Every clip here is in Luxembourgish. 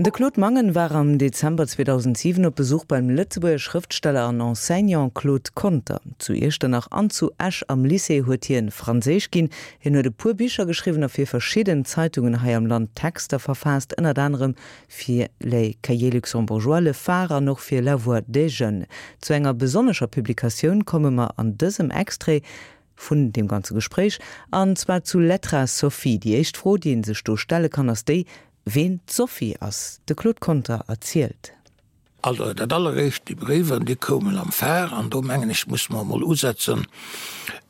De Claude Mangen war am Dezember 2007 op Besuch beim Lëtzebuerger Schrëftsteller an Enseignant Claude Conter. Zu Iechternach an zu Esch am Lycée huet hien Franséisch ginn. Hien huet e puer Bicher geschriwwen a fir verschidden Zeitungen hei am Land Texter verfaasst, ënnert anerem fir Les Cahiers Luxembourgeois, Le Phare an och fir La Voix des Jeunes. Zu enger besonnescher Publikatioun komme mer an dësem Extrait vun deem ganze Gespréich, an zwar zu Lettra Sophie. Déi éischt Fro, déi ee sech do stelle kann, ass déi, ween d'Sophie ass. De Claude Conter erzielt. Also dat alleréischt, déi Bréiwer, déi koumen am Phare, an do mengen ech, musse mer emol usetzen,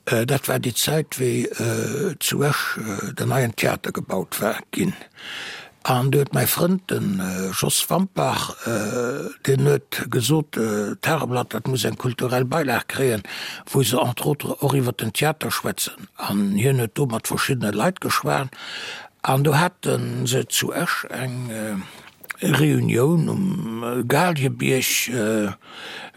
dat war déi Zäit, wéi zu Esch den neien Theater gebaut war ginn. An du huet mäi Frënd, de Jos Wampach, deen huet gesot, d'Tageblatt, dat muss eng kulturell Beilag kréien, wou se entre autres och iwwer den Theater schwätzen. An hien huet do mat verschiddene Leit geschwat, an do hate se zu Esch eng Reunioun um Galiebierg,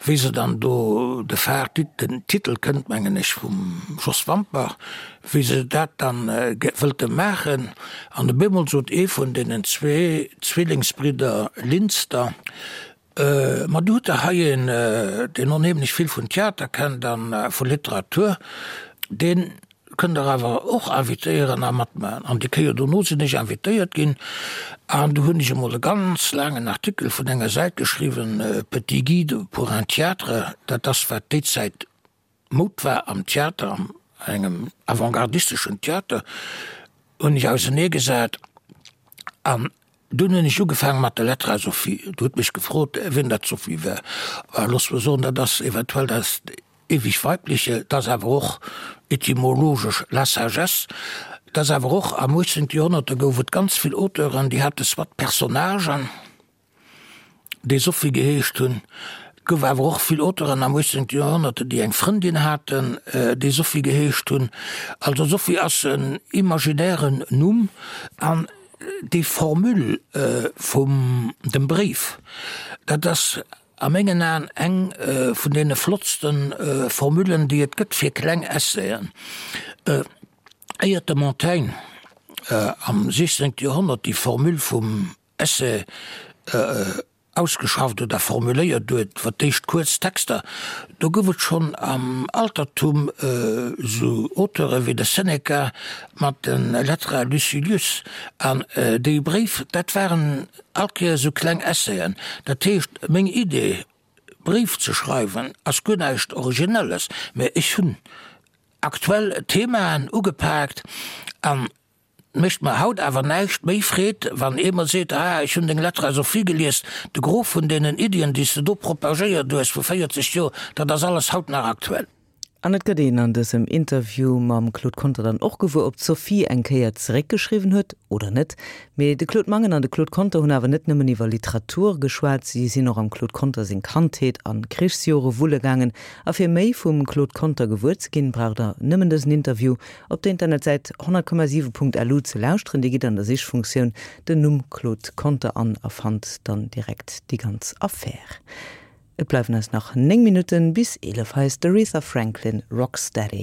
wéi se dann do de Phare, den Titel kënnt mengen ech vum Jos Wampach, wéi se dat dann wëllte maachen. An op eemol sot ee vun deenen zwee Zwillingsbridder Linster, Ma du hutt der hei een, deen onheemlech vill vun Theater kennt a vu Literatur, deen kënnt der awer och invitéieren a matmaachen. An déi Kéier dono sinn ech invitéiert ginn an du hunn ech emol e ganz laangen Artikel vun enger Säit geschriwwen, Petit guide pour un théâtre, dat ass wat déi Zäit Moud war am Theater, an engem avantgardisteschen Theater, hunn ech auseneegesat an dunn hunn ech ugefaange mat der Lettre à Sophie. Du hutt mech gefrot, wien dat Sophie war. Looss mer soen, dat ass eventuell dat ewig Weibliche, dat ass awer och etymologesch la sagesse, dat ass awer och am 18. Joerhonnert, do gouf et ganz vill Auteuren, déi hate soit Personnagen, déi Sophie geheescht hunn, et gouf awer och vill Auteuren am 18. Joerhonnert, déi eng Frëndin haten, déi Sophie geheescht hunn. Also Sophie ass en imaginären Numm an déi Formule vum dem Bréif, dat ass A mengen Aen eng vun deene flottste Formulen, déi et gëtt fir kleng Essayen. Éiert de Montaigne am 16. Joerhonnert déi Formule vum Essai ausgeschafft oder formuléiert huet, fir d'éischt kuerz Texter, do gouf et schonn am Altertum esou Auteure wéi de Seneca mat de Lettres à Lucilius. An déi Bréif, dat waren All Kéier esou kleng Essayen. Dat heescht, meng Idee, Bréif ze schreiwen, ass guer näischt Originelles, mä ech hunn aktuell Themaen ugepaakt an et mécht mer haut awer näischt méi Freed, wann ee mer seet, Ah, ech hunn deng Lettre à Sophie gelies, de Gros vun deenen Iddien, déi s de do propagéiert hues vu 40 Joer, dat ass alles haut nach aktuell. An et gëtt een an dësem Interview mam Claude Conter dann och gewuer, ob d'Sophie eng Kéier zeréckgeschriwwen huet oder net. Mee de Claude Mangen an de Claude Conter hunn awer net nëmmen iwwer Literatur geschwat, si sinn och am Claude Conter seng Kandheet an Krichsjore wulle gaangen. A fir méi vum Claude Conter gewuer ze ginn, braucht der nëmmen dësen Interview op der Internetsäit 100,7.lu ze lauschteren. Dir gitt an der Sichfunktioun den Numm Claude Conter an a fannt dann direkt déi ganz Affär. Et bleiwen eis nach 9 Minutten bis 11. Hei ass d'Aretha Franklin, Rock Steady.